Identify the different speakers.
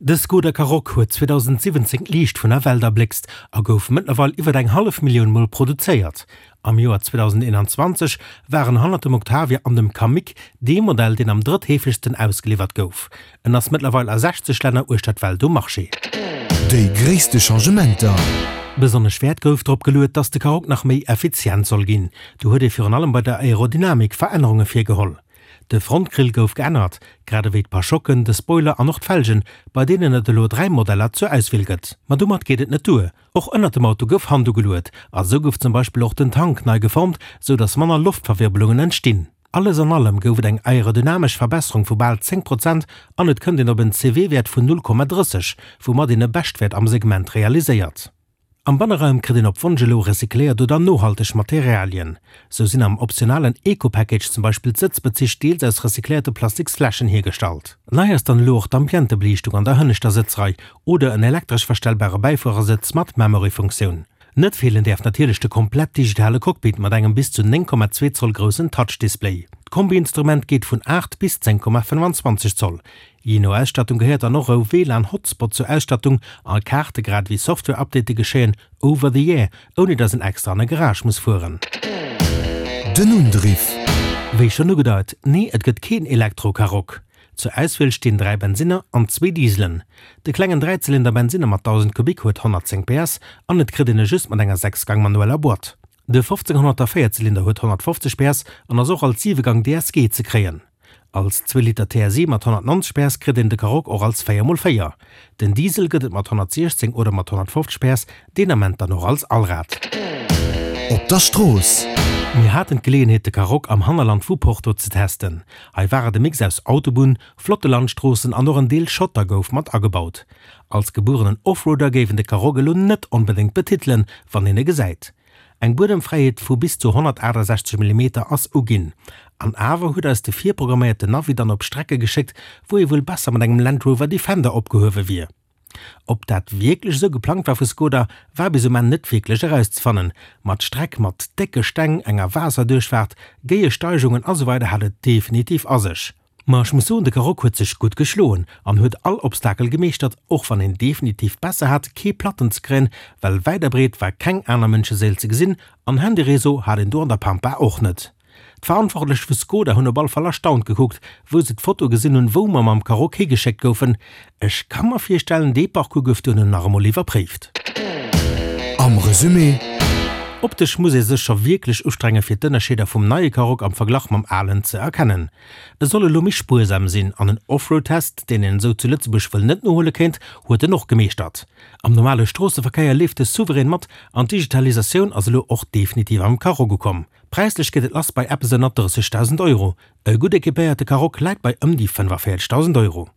Speaker 1: De Skoda Karoq huet 2017 d'Liicht vun der Welt erbléckst a gouf mëttlerweil iwwer eng hallef Millioun Mol produzéiert. Am Joer 2021 war en hannert dem Octavia an dem Kamiq dee Modell, deen am drëttheefegsten ausgeliwwert gouf. En ass mëttlerweil a 60 Länner uechter d'Welt um Marché.
Speaker 2: Déi gréisste Changementer.
Speaker 1: Besonnesch Wäert gouf drop geluet, dass de Karoq nach méi effizient soll ginn. Do huet ee virun allem bei der Aerodynamik Verännerunge virgeholl. De Frontgrill gouf geännert, grad ewéi d'Parschocken, de Spoiler an och d'Felgen, bei deenen et elo 3 Modeller zur Auswiel gëtt. Ma domat geet et net duer, och ënnert dem Auto gouf Hand ugeluet a sou gouf zum Beispill och den Tank nei geformt, sou dass manner Loftverwirbelungen entstinn. Alles an allem gouf et eng aerodynamesch Verbesserung vu bal 10 Prozent an et kënnt een op en CW-Wäert vun 0,30, woumat een e Beschtwäert am Segment realiséiert. Am Banneraum kritt een op Wonsch elo recycléiert oder nohalteg Materialien. Sou sinn am optionalen Eco-Package zum Beispill d'Sëtzbezich deels aus recycléierte Plastiksfläschen hiergestallt. Nei ass dann elo och d'Ambientebeliichtung an der hënneschter Sëtzrei oder en elektresch verstellbare Bäifuerersëtz mat Memory-Funktioun. Net feelen däerf natierlech de komplett digitale Cockpit mat engem bis zu 9,2 Zoll groussen Touch-Display. D'Kombi-Instrument geet vun 8 bis 10,25 Zoll. Jee no Ausstattung gehéiert dann och e WLAN-Hotspot zur Ausstattung a Kaarte grad ewéi Software-Update geschéien over the air, ouni dass en extra an e Garage muss fueren.
Speaker 2: Den Undriff.
Speaker 1: Wéi schonn ugedeit, nee et gëtt keen Elektro-Karoq. Zur Auswiel stinn 3 Bensinner an zwee Dieselen. De klengen Dräizylinder Bensinner mat 1000 Kubik huet 110 PS an et kritt een e just mat enger 6 Gang manueller Boîte. De 1500er Véierzylinder huet 150 PS an ass och als 7 Gang DSG ze kréien. Als Zweeliter TSI mat 190 PS kritt een de Karoq och als 4x4. Den Diesel gëtt et mat 116 oder mat 150 PS, deen Ament dann och als Allrad.
Speaker 2: Op der Strooss.
Speaker 1: Mir haten d'Geleeënheet de Karoq am Hannerland vu Porto ze testen. Hei war et e Mix aus Autobunn, flotte Landstroossen an och en Deel Schotter gouf mat agebaut. Als gebuerenen Offroader géif een de Karoq elo net onbedéngt betitelen, wann een e gesäit. Eng Buedemfräiheet vu bis zu 168 Millimeter ass uginn. An awer huet eis de virprogramméierten Navi dann op Strecke geschéckt, wou ee wuel besser mat engem Land Rover Defender opgehuewe wier. Ob dat wierklech esou geplangt war vu Skoda, war bis um Enn net wierklech erauszefannen. Ma d'Streck mat décke Steng, enger Waasserduerchfaart, géie Steigungen a sou weider hat et definitiv a sech. Ma ech muss soen, de Karoq huet sech gutt geschloen an huet all Obstakel gemeeschtert, och wann een definitiv besser hat kee Platten ze kréien, well wäit a breet war keng aner Mënscheséil ze gesinn an Handyréseau hat een do an der Pampa och net. D'Verantwortlech vu Skoda hunn op all Fall erstaunt gekuckt, wou se d'Foto gesinn hunn, wou mer mam Karoq higeschéckt goufen. Ech ka mer virstellen, dee Parcours gouf duerno nach emol iwwerpréift.
Speaker 2: Am Resumé.
Speaker 1: Optesch muss ee sech scho wierklech ustrenge fir d'Ënnerscheeder vum neie Karoq am Verglach mam alen ze erkennen. E soll elo méi spuersam sinn an en Offroad-Test, deen een esou zu Lëtzebuerg wuel net nohuele kéint, huet en och gemeeschtert. Am normale Stroosseverkéier leeft e souverän mat an d'Digitalisatioun ass elo och definitiv am Karoq ukomm. Präislech geet et lass bei eppes ënner 30.000 Euro. E gutt equipéierte Karoq läit bei ëm déi 45.000 Euro.